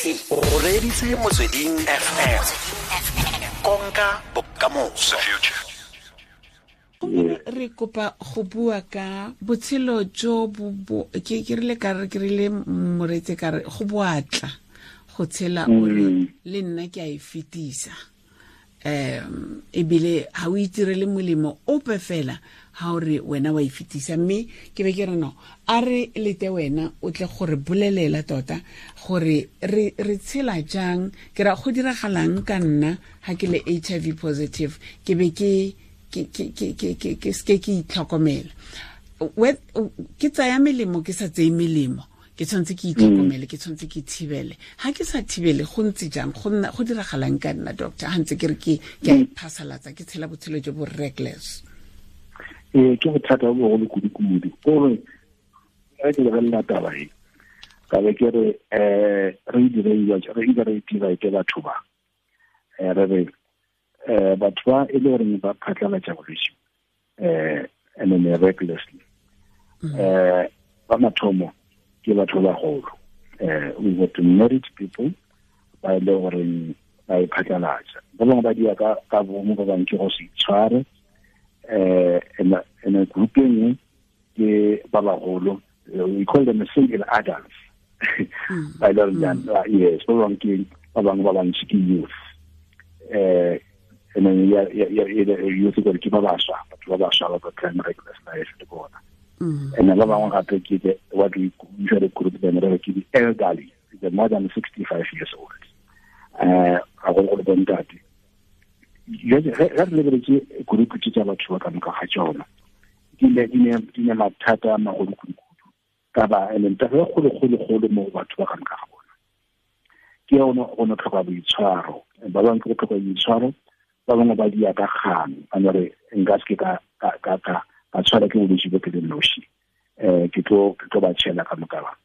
O reditse Motsweding FM, konka bokamoso. Re kopa go bua ka botshelo jo bo ke rile ka re ke rile moretse ka re go boatla go tshela o re le nna ke a e fetisa, ebile ha o itirele molemo ope fela ha o re wena wa e fetisa. Mme ke be ke re no a re lete wena o tle gore bolelela tota gore re tshela jang, ke ra go diragalang ka nna ha ke le HIV positive, ke be ke ke ke itlhokomela, ke tsaya melemo ke sa tseye melemo, ke tshwanetse ke itlhokomele, ke tshwanetse ke thibele. Ha ke sa thibele go ntse jang, go nna go diragalang ka nna, doctor, ha ntse ke re ke a iphasalatsa, ke tshela botshelo jo bo reckless? Ee, ke bothata bo bogolo kudu-kudu. Kore ge ke lebelela taba e, ka be ke re re re dira ke batho ba re re batho ba e le goreng ba phatlalatša bolwetse and then recklessly, ba mathomo ke batho ba bagolo. We got married people ba e le goreng ba e phatlalatša, ba bangwe ba dia ka bomo, ba bangwe ke go se itshware. And group e nngwe ke ba bagolo, we call them single adults, ba e le goreng, yes, ba bangwe ke ba bangwe ba bantsi ke youth, and then youth gore ke ba baswa, batho ba baswa ba ba phelang reckless life le bona. And ba bangwe gape ke the what we usually group them re ke the elderly, the more than 65 years old, gagologolo bontate. Jwale ge re lebeletse group tse tsa batho ba ka moka ga tsona, di ne mathata a magolo kudu-kudu ka ba and taba e kgolo-kgolo-kgolo mo batho ba ka moka ga bona ke yone go no tlhoka boitshwaro. Ba bangwe ke go tlhoka boitshwaro, ba bangwe ba dia ka kgang, ba no re nka se ke ka tshwara ke bolwetse bo ke le noši, ke tlo ba tšhela ka moka ba.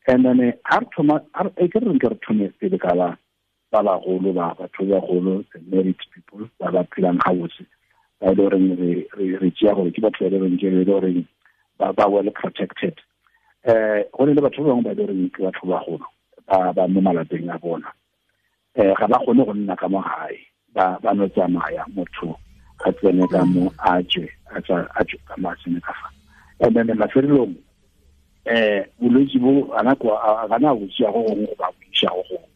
And then ha re thoma, e ke re nke re thome pele ka ba bagolo, ba batho ba bagolo, the married people ba ba phelang gabotse, ba e le goreng re tšea gore ke batho ba e le goreng ke le goreng ba well protected. Go ne le batho ba bangwe ba e le goreng ke batho ba bagolo ba mo malapeng a bona, ga ba kgone go nna ka mo gae, ba no tsamaya, motho a tsene ka mo a tswe, a tswe ka mo a tsene ka fa. And then mafelelong bolwetse bo ana ga na bo tšea go gongwe go ba bo iša go gongwe.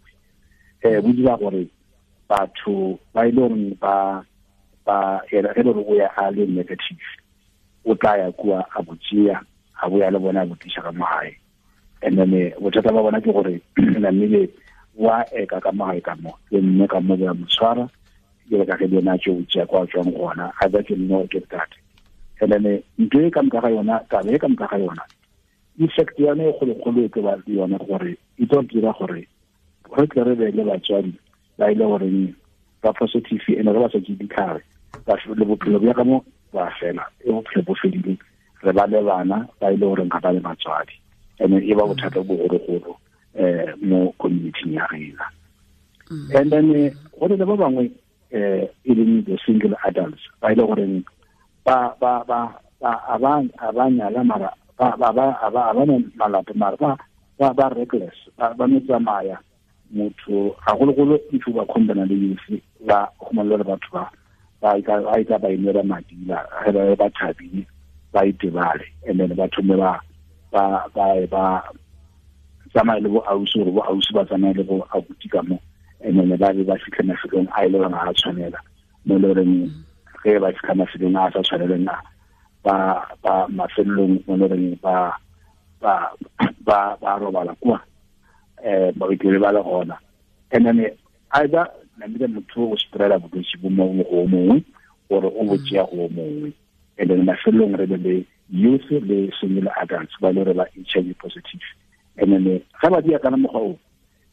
Bo dira gore batho ba e le goreng ba ge le gore o ya a le negative, o tla ya kua a bo tšea, a boya le bona a bo tliša ka mo gae. And then bothata ba bona ke gore namile wa eka ka mo gae ka mo le mme ka mo ba mo tshwara, ke ka ge le yena a tšeo tšea kwa tswang gona, a ba ke nne ke tate. And then ntho e ka moka ga yona, taba e ka moka ga yona, effect yone e kgolokgolo e tlo ba le yone gore e tlo dira gore re tle re be le batswadi ba e le goreng ba positive, and re ba sa tšee ditlhare, le bophelo bja ka mo ba fela, e bophelo bo fedile, re ba le bana ba e le goreng ga ba le batswadi, and e ba bothata bo bogologolo mo community ya rena. And then go le ba bangwe e leng the single adults ba e le goreng ba ba ba ba nyala mara ba ba ba ba malapa mara ba reckless, ba no tsamaya motho gagologolo if ba khombana le youth, ba khumana le batho ba ba ba inela madila, ge ba thabile ba itebale, and then ba thome ba ba tsamaye le bo ausi, gore bo ausi ba tsamaye le bo abuti ka mo, and then ba be ba fitlhe mafelong a e le goreng ga a tshwanela, mo e le goreng ge ba fitlha mafelong a sa tshwaneleng a ba mafelong mo e le goreng ba robala kwa, ba itlele ba le gona. And then either namile motho o spreada bolwetse bo mongwe go mongwe, gore o bo tšea go mongwe. And then mafelong re be le youth le single adults ba le gore ba HIV positive. And then ga ba dia kana mokgwa o,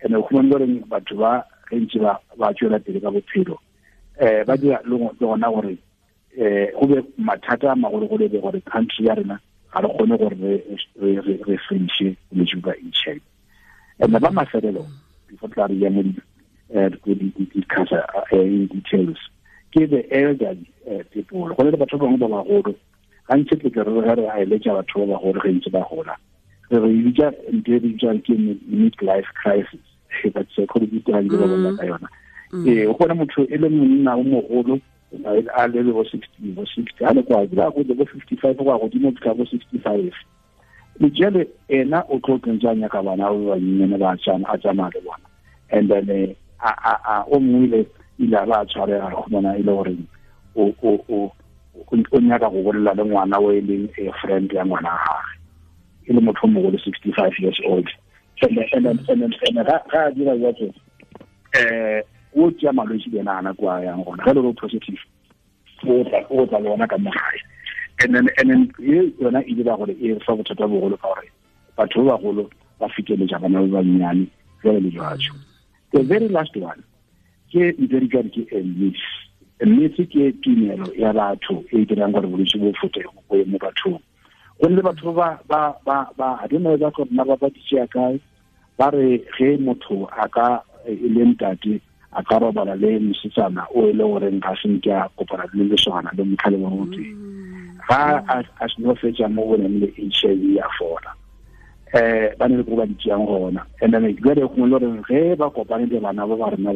and o khumane gore batho ba ge ntse ba tswela pele ka bophelo, ba dira le gona gore go be mathata a magologolo be gore country ya rena ga re kgone gore re fediše bolwetse ba HIV. And ba mafelelo before tla re ya mo di-discuss in details ke the elderly people. Go le batho ba bangwe ba bagolo gantsi tle ke re re a eletša batho ba bagolo ge ntse ba gola, re bitša ntho e bitswang ke mid life crisis. But psychologist ga ke ba bona ka yona. O bona motho e le monna o mogolo a le bo 60 bo 60 a le kwa go bo 55 go godimo ka bo 65. Le jale ena o tlo tsentsanya ka bana ba bannyane ba tsana a tsamaya le bona. And then a o mongwe ile ba tshwarega go bona ile gore o nyaka go bolela le ngwana o e leng a friend ya ngwana wa gagwe, e le motho o mogolo 65 years old. And ga a dira jalo o tšea malwetse le ena a nako a yang gona ge le positive o tla le ona ka mo gae. And then e yona e dira gore e fa bothata bogolo ka gore batho ba bagolo ba feteletša bana ba bannyane jalo le jalo. The very last one ke ntho e ke a myth. A myth ke tumelo ya batho e dirang gore bolwetse bo fote bo ye mo bathong. Go le batho ba a don't know ba gore na ba di tšea kae, ba re ge motho a ka e le ntate a ka robala le mosetsana o e le goreng ga se nke a kopana le leswana le motlhale wa motho, ga a seno fetša mo go neng le HIV ya fola. Ba ne le go ba di tšeang gona. And then jale gongwe le gore ge ba kopane le bana ba ba rena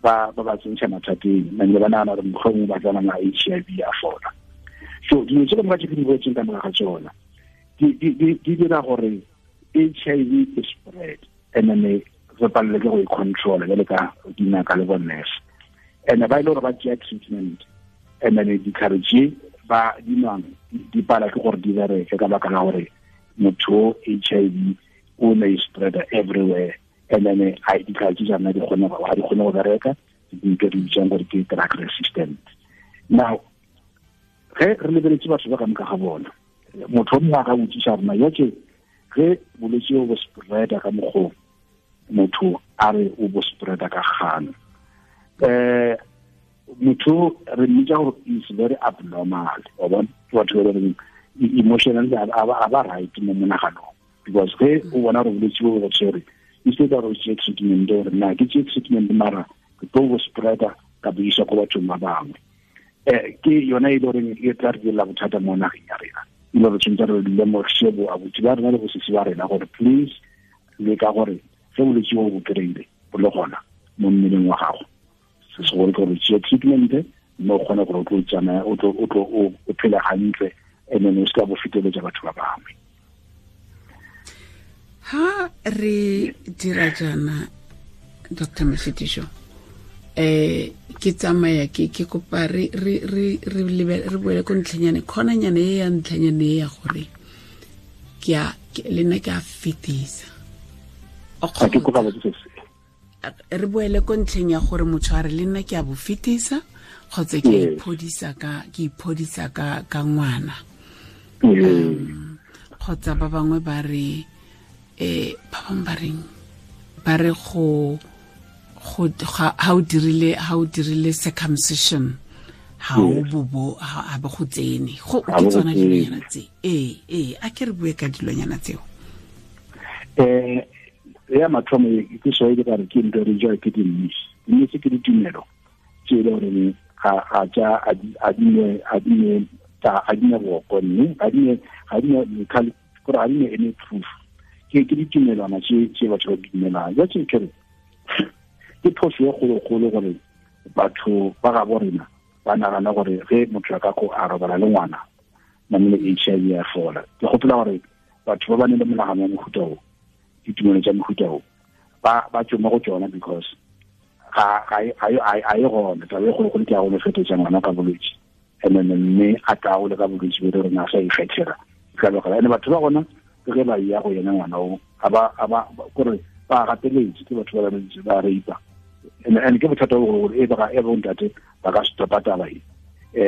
ba ba tsentšha mathateng, and le ba nagana gore mohlomongwe ba tsena na HIV ya fola. So dilo tse ka moka tse ke di boletseng ka moka ga tsona di dira gore HIV e spread, and then re palelwe ke go e control jale ka dingaka le bo nurse. And ba ile gore ba tšea treatment, and then ditlhare tše ba di nwang di pala ke gore di bereke ka baka la gore motho HIV o ne e spread everywhere. And then a ditlhare tše tsona di kgone go bereka, di di bitsang gore ke drug resistant. Now ge re lebeletse batho ba ka moka ga bona, motho o mongwe a ka botsiša rona ya tše ge bolwetse bo spreada ka mokgwa motho a re o bo spreada ka kgano, motho re mmitsa gore is very abnormal. Wa bona ke batho ba reng emotionally a ba right mo monaganong, because ge o bona gore bolwetse bo bo tshwere, instead of go tšea treatment gore na ke tšee treatment mara ke tlo bo spreada ka bo isa ko bathong ba bangwe. Ke yona e le goreng e tla re direla bothata mo nageng ya rena. E le gore tshwanetse re lemoše bo abuti ba rena le bosisi ba rena gore please le ka gore ge bolwetse bo bo kry-ile bo le gona mo mmeleng wa gago, se segolo ke gore tšea treatment mme o kgone gore o tlo tsamaya o tlo o phele hantle, and then o se ka bo feteletša batho ba bangwe. Ha re dira jaana Dr. Mashitiso, ke tsamaya ke kopa re boele ko ntlhanyane khonanyane e ya ntlhanyane e ya gore ke a le nna ke a fetisa. Re boele ko ntlheng ya gore motho a re le nna ke a bo fetisa kgotsa ke iphodisa ka ngwana. Kgotsa ba bangwe ba re ba bangwe ba reng ba re go ha o dirile circumcision ha o bobo ha ba go tsene go ke tsona dilonyana tse. A ke re bue ka dilonyana tseo. Ya mathomo ke so e ka re ke ntho re jwa ke di-myth ke ditumelo tse e le gore ga tša a di ne boko mme ga di ne any proof. Ke ditumelwana tse batho ba di dumelang. Ja tse ke re ke phoso e kgolokgolo gore batho ba gabo rena ba nagana gore ge motho a ka ko a robala le ngwana namile HIV ya fola. Ke gopola gore batho ba ba ne le monagano wa mohuta o, ditumelo tša mohuta o, ba tswe mo go tsona because ga e gona. Taba e kgolokgolo ke ya go no fetetša ngwana ka bolwetse, and then mme a taole ka bolwetse bo re rena a sa ikgethela ka lebaka. And batho ba gona ke ge ba ya go yena ngwana o ba kore ba gateletse ke batho ba ba rape. And ke bothata bo gore e ba e bontate ba ka stopa taba e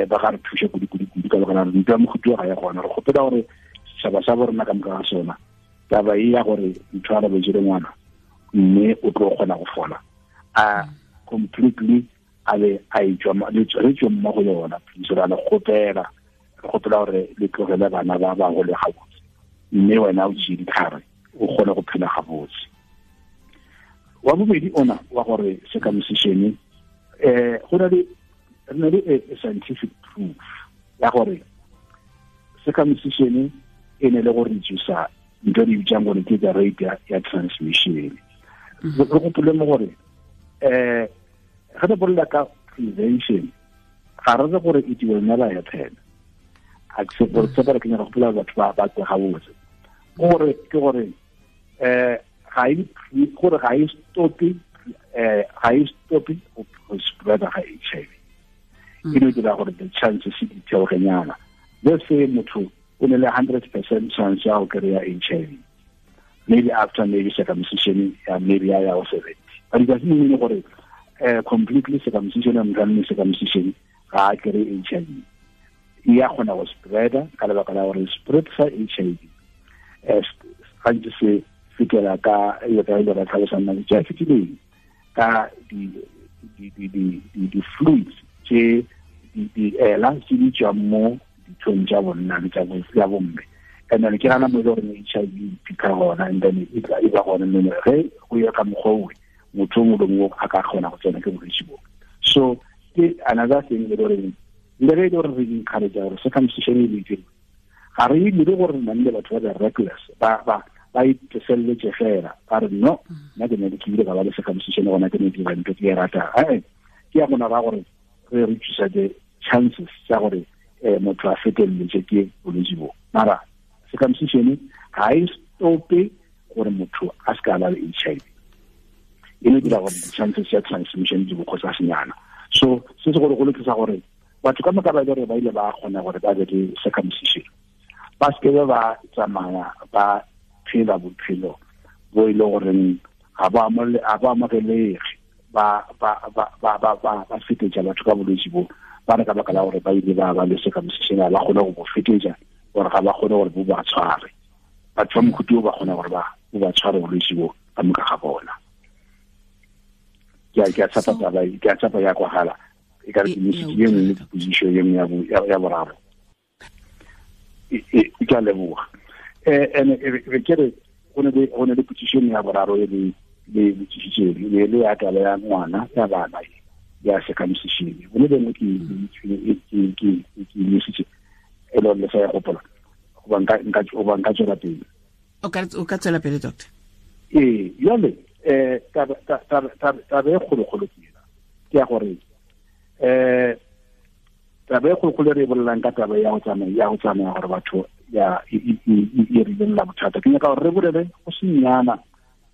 ba ga re thuše kudu ka lebaka la ntwa mohuta ga ya gona. Re kgopela gore setšhaba sa bo rena ka moka ga sona taba e ya gore motho a robetse le ngwana mme o tlo kgona go fola a completely a be a etswa re tswe mo go yona. Please re le kgopela gore le tlogele bana ba ba gole gabotse, mme wena o tšee ditlhare o kgone go phela gabotse. Wa bobedi ona wa gore circumcision go na le re na le a scientific proof ya gore circumcision e ne le go reduce ntho di bitsang gore ke the rate ya transmission. Re gopole mo gore ge re bolela ka prevention ga re re gore it will never happen. A ke gore tse ba ke nyaka go gopola batho ba tse gabotse gore ke gore ga e gore ga e stope ga e stope go spread ga HIV. E no dira gore the chances di theogenyana. Let's say motho o ne le 100% chance ya go kry-a HIV, maybe after maybe circumcision ya maybe ya go 70, but it doesn't mean gore completely circumcision and running circumcision ga a kry HIV. E ya kgona go spreada ka lebaka la gore spread sa HIV gantsi se fetela ka e ka ile ra tlhalosang nako tse fetileng ka di fluids tse di ela tse di tswang mo dithong tsa bonna le tsa bomme. And then ke gana mo e le gore HIV e fitlha gona, and then e tla e ba gona mme ge go ya ka mokgwa owe motho o mongwe le mongwe a ka kgona go tsena ke bolwetse bo. So ke another thing e le goreng le ge e le gore re encourage gore circumcision e le ga re dire gore nna le batho ba reckless ba iteseletse fela ba re no nna ke ne ke ile ka ba le circumcision gona ke ne ke dira ntho ke e ratang. Ke ya gona ba gore re reduce the chances tsa gore motho a feteletse ke bolwetse bo. Mara circumcision ga e stope gore motho a se ka ba le HIV, e no dira gore di-chances ya transmission di bokgotsa senyana. So se se gore go lokisa gore batho ka moka ba ile gore ba ile ba kgona gore ba be le circumcision, ba se ke ba tsamaya ba phela bophelo bo e le goreng ga ba amogelege, ba fetetša batho ka bolwetse bo ba re ka baka la gore ba ile ba ba le circumcision ba kgone go bo fetetša gore ga ba kgone gore bo ba tshware. Batho ba mokhuti o ba kgona gore ba bo ba tshware bolwetse bo ka moka ga bona. Ke a tshepa taba e, ke a tshepa ya kwagala e ka re ke mesitse ye nngwe position ye nngwe ya boraro. Ke a leboga. Ene re ke re go ne le position ya boraro e le botsisitse le ya taba ya ngwana ya bana ya circumcision. Go ne bengwe ke mesitse e le le sa ya gopola goba nka tswela pele. O ka tswela pele doctor. Ee, jale taba e kgolokgolo ke ena ke ya gore taba e kgolokgolo re e bolelang ka taba ya go tsamaya gore batho ya e re lelela bothata. Ke nyaka gore re bolele go senyana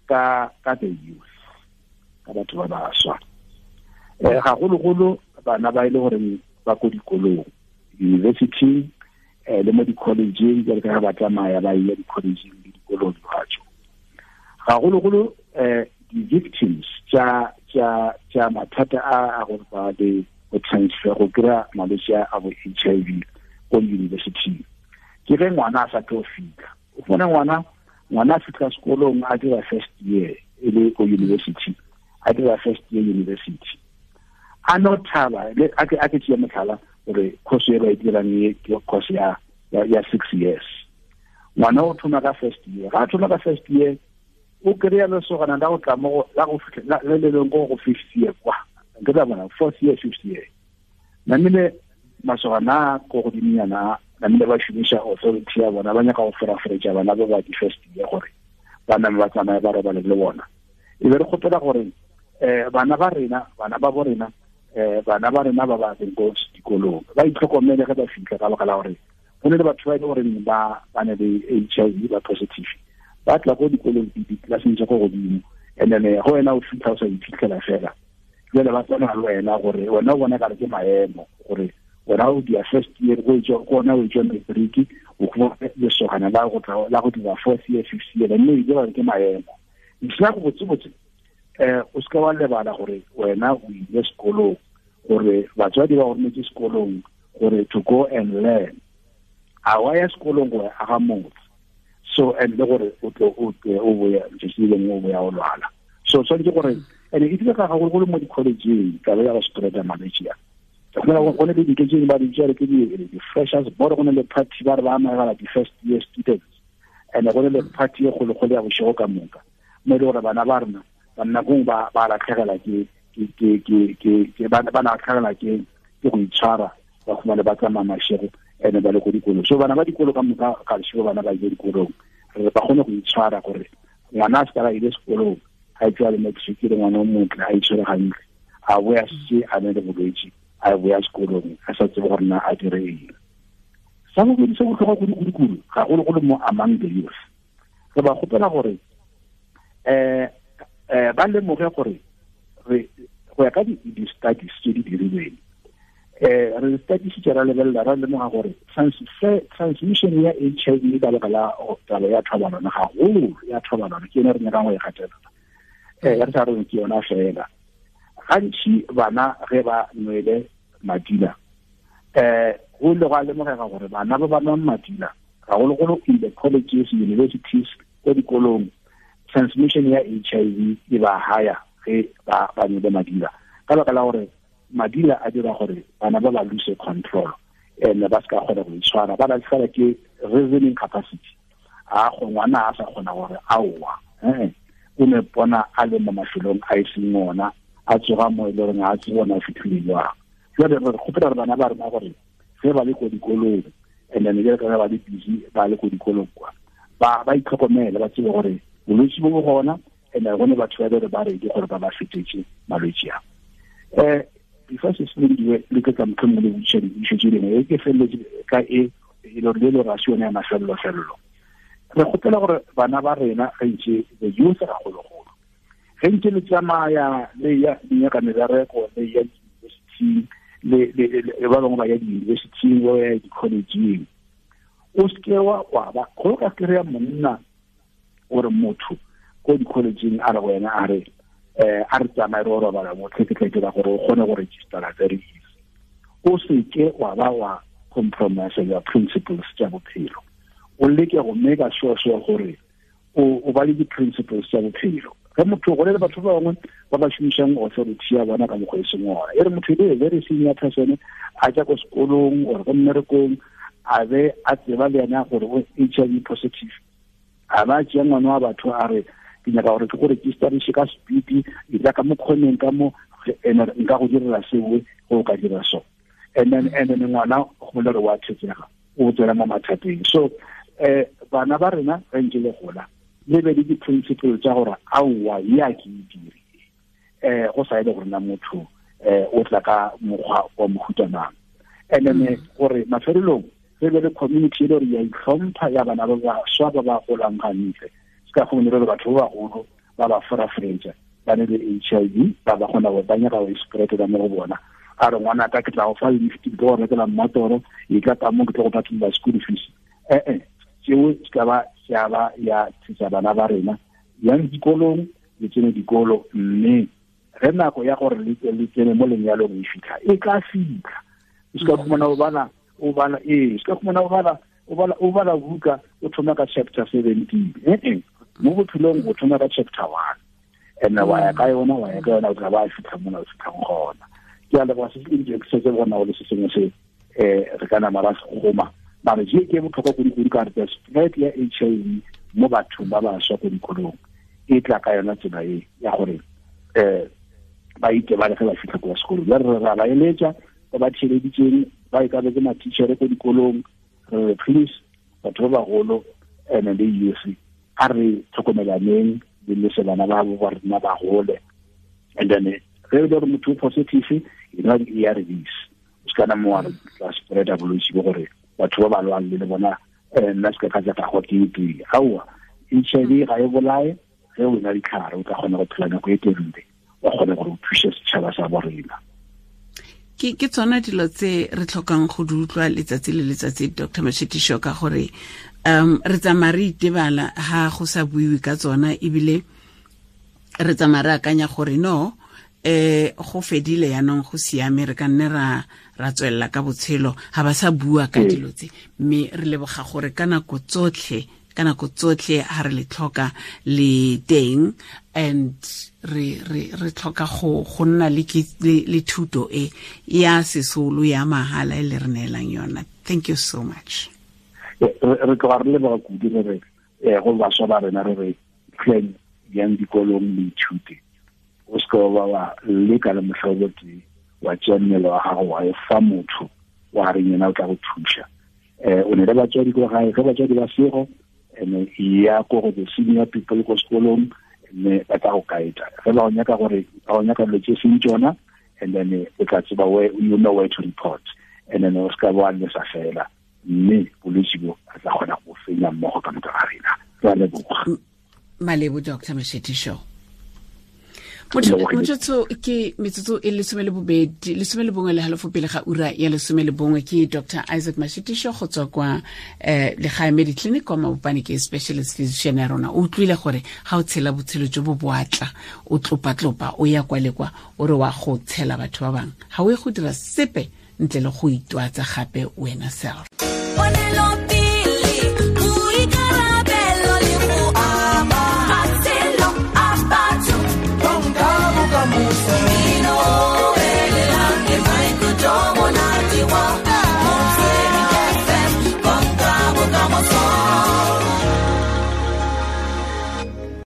ka the youth, ka batho ba baswa, gagologolo bana ba e le gore ba ko dikolong, university le mo di-collegeng, jalo ka ge ba tsamaya ba ile di-collegeng le dikolong dibatso. Gagologolo di-victims tsa mathata a gore ba le go transfer go kry-a malwetse a bo HIV ko university ke ge ngwana a sa tlo fitlha. O fumana ngwana a fitlha sekolong a dira first year e le ko university, a dira first year university a no thaba. A ke tšee motlhala gore course e ba e dirang e ke course ya 6 years. Ngwana o thoma ka first year, ga a thoma ka first year o kry-a lesogana la go tla mo la go fitlha le le leng go fifth year kwa ke tla bona fourth year fifth year. Namile masogana ko godiminyana namile ba šomiša authority ya bona, ba nyaka go feraferetša bana ba ba di-first year gore ba name ba tsamaye ba robale le bona. E be re kgopela gore bana ba rena, bana ba bo rena, bana ba rena ba ba leng ko dikolong ba itlhokomele ge ba fitlha, ka baka la gore go ne le batho ba e le goreng ba ne le HIV ba positive ba tla ko dikolong di-classeng tsa ko godimo, and then go wena o fitlha o sa iphitlhela fela. Jale ba tsena le wena gore wena o bona kare ke maemo gore wena o dia first year go gona o tswa matric o go lesogana la go tla la go dira fourth year fifth year, mme e dira ke maemo. Ntlha go botsebotse o se ka wa lebala gore wena o ile sekolong, gore batswadi ba go rometse sekolong gore to go and learn. A wa ya sekolong go aga motse, so and le gore o tlo o boya letsatsi le lengwe o boya o lwala. So tshwanetse gore and e dira ka gagologolo mo di-collegeng taba ya go spreada malwetse a. Go ne le dintho tse ba di bitsa ke di-freshers board, go ne le party ba re ba amogela di-first year students, and go ne le party e kgologolo ya bošego ka moka mo e le gore bana ba rena ba nakong ba latlhegelwa ke ba latlhegelwa ke go itshwara, ba khumane ba tsamaya mašego ene ba le ko dikolong. So bana ba dikolo ka moka ga lešego bana ba ile dikolong re ba kgone go itshwara gore ngwana a se ka ba ile sekolong a tswa le matric le ngwana o motle a itshwere gantle a boya se a ne le bolwetse a boya sekolong a sa tsebe gore na a dire eng. Sa bobedi se botlhokwa kudu-kudu-kudu gagologolo mo among the youth, re ba kgopela gore ba lemoge gore go ya ka di-studies tse di dirilweng, re studies ra lebelela ra lemoga gore transmission ya HIV ka lebaka la taba ya thobalano, gagolo ya thobalano ke yone re nyakang go e gatelela, re sa reng ke yona fela. Gantši bana ge ba nwele madila, go ile gwa lemogega gore bana ba ba nwang madila gagologolo in the colleges, universities, ko dikolong, transmission ya HIV e ba higher ge ba nwele madila, ka lebaka la gore madila a dira gore bana ba ba lose control and ba se ka kgona go itshwara, ba latlhegelwa ke reasoning capacity. A go ngwana a sa kgona gore aowa, o ne bona a le mo mafelong a e seng ona, a tsoga mo e le goreng a tse bona a fitlhile jwang. Jwale re kgopela gore bana ba rena gore ge ba le ko dikolong, and then jale ka ba le busy ba le ko dikolong kwa, ba itlhokomele, ba tsebe gore bolwetse bo bo gona, and go ne batho ba bere ba redi gore ba ba fetetse malwetse a. Before se selendiwe le ke ka motlhomongwe le botšiša dipotšišo tše dingwe, e ke feleletse ka e le gore le le ga se yone ya mafelelo-felelo. Re kgopela gore bana ba rena ge ntse the youth gagologolo, ge ntse le tsamaya le ya nyaka mebereko, le ya di-university, le ba bangwe ba ya di-university, ba ya di-collegeng, o seke wa ba go ka kry-a monna gore motho ko di-collegeng a re go wena a re a re tsamaye re o robala mo ke tla dira gore o kgone go registera very easy. O seke wa ba wa compromise your principles tša bophelo, o leke go make sure gore o ba le di-principles tša bophelo. Ge motho go le batho ba bangwe ba ba šomišang authority ya bona ka mokgwa e seng ona, e re motho e le very senior person a tša ko sekolong or ko mmerekong, a be a tseba le yena gore o HIV positive, a ba tšea ngwana wa batho a re ke nyaka gore ke go registerise ka speed, e tla ka mo kgoneng ka mo nka go direla seo go ka dira so, and then ngwana go bolela gore wa thetsega, o tswela mo mathateng. So bana ba rena ge ntse le gola le be le di-principle tša gore aowa ya ke e dire, go sa e le gore na motho o tla ka mokgwa wa mohuta mang. And then gore mafelelong re be le community e le gore ya itlhompha ya bana ba baswa ba ba golang gantle, se ka gomone re batho ba bagolo ba ba forafretsa ba ne le HIV, ba ba kgona go ba nyaka go spread-ela mo go bona. A re ngwana ka ke tla go fa lift, ke tlo go rekela mmatoro, e tla ka mo ke tlo go patela school fees. Tseo se ka ba ya ba ya thusa bana ba rena yang dikolong, le tsene dikolo, mme ge nako ya gore le tsene mo lenyalong e fitlha, e tla fitlha. O se ka khumana o bala se ka khumana o bala buka o thoma ka chapter 17, mo bophelong o thoma ka chapter 1, and wa ya ka yona o tla ba fitlha mona o fitlhang gona. Ke a leboga se se ke se bona go le se sengwe se re ka nama ra se goma, mare je ke botlhokwa kudu-kudu ka re spread ya HIV mo bathong ba baswa ko dikolong e tla ka yona tsela e ya gore ba itebale ge ba fitlha kwa sekolong. Jwale re ra ba eletša ba ba theeleditseng, ba e ka be ke matitšhere ko dikolong, re please batho ba bagolo and le youth a re tlhokomelaneng le lese bana ba bo ba rena ba gole. And then ge e le gore motho o positive, e nwa di-ARVs, o se kana mo wa re tla spread-a bolwetse bo gore batho ba ba lwang le bona nna se ka ka tla go ke pele. Aowa, HIV ga e bolae, ge o na ditlhare o tla kgona go phela nako e telele, wa kgona gore o thuse setšhaba sa bo rena. Ke tsona dilo tse re tlhokang go di utlwa letsatsi le letsatsi, Dr. Mashitisho, ka gore re tsamaya re itebala ha go sa buiwe ka tsona, ebile re tsamaya re akanya gore no go fedile yanong, go siame, re ka nne ra tswelela ka botshelo, ha ba sa bua ka dilo tse. Mme re leboga gore ka nako tsotlhe ha re le tlhoka le teng, and re tlhoka go nna le thuto e ya sesolo ya mahala e le re neelang yona. Thank you so much. Re tloga re leboga kudu re re go baswa ba rena re re tleng yang dikolong le ithute, o se ka wa leka le mohlobo tee wa tšea mmele wa gago wa e fa motho wa reng yena o tla go thuša. O ne le batswadi ko gae, ge batswadi ba sego, and ya ko go the senior people ko sekolong, Mme ba tla go kaetsa ge ba o nyaka gore ba o nyaka dilo tse seng tsona, and then o tla tseba where you know where to report, and then o se ka wa lesa fela, mme bolwetse bo re tla kgona go fenya mmogo ka moka ga rena. Re a leboga. Malebo, Dr Mashetisho. Motsotso ke metsotso e 12, 11:30 pele ga ura ya 11. Ke Dr Isaac Mashitisho go tswa kwa Legae Mediclinic kwa Mabopane, ke specialist physician ya rona. O utlwile gore ga o tshela botshelo jo bo boatla, o tlopa-tlopa, o ya kwa le kwa, o re wa go tshela batho ba bangwe, ga o ye go dira sepe ntle le go itwatsa gape wena self.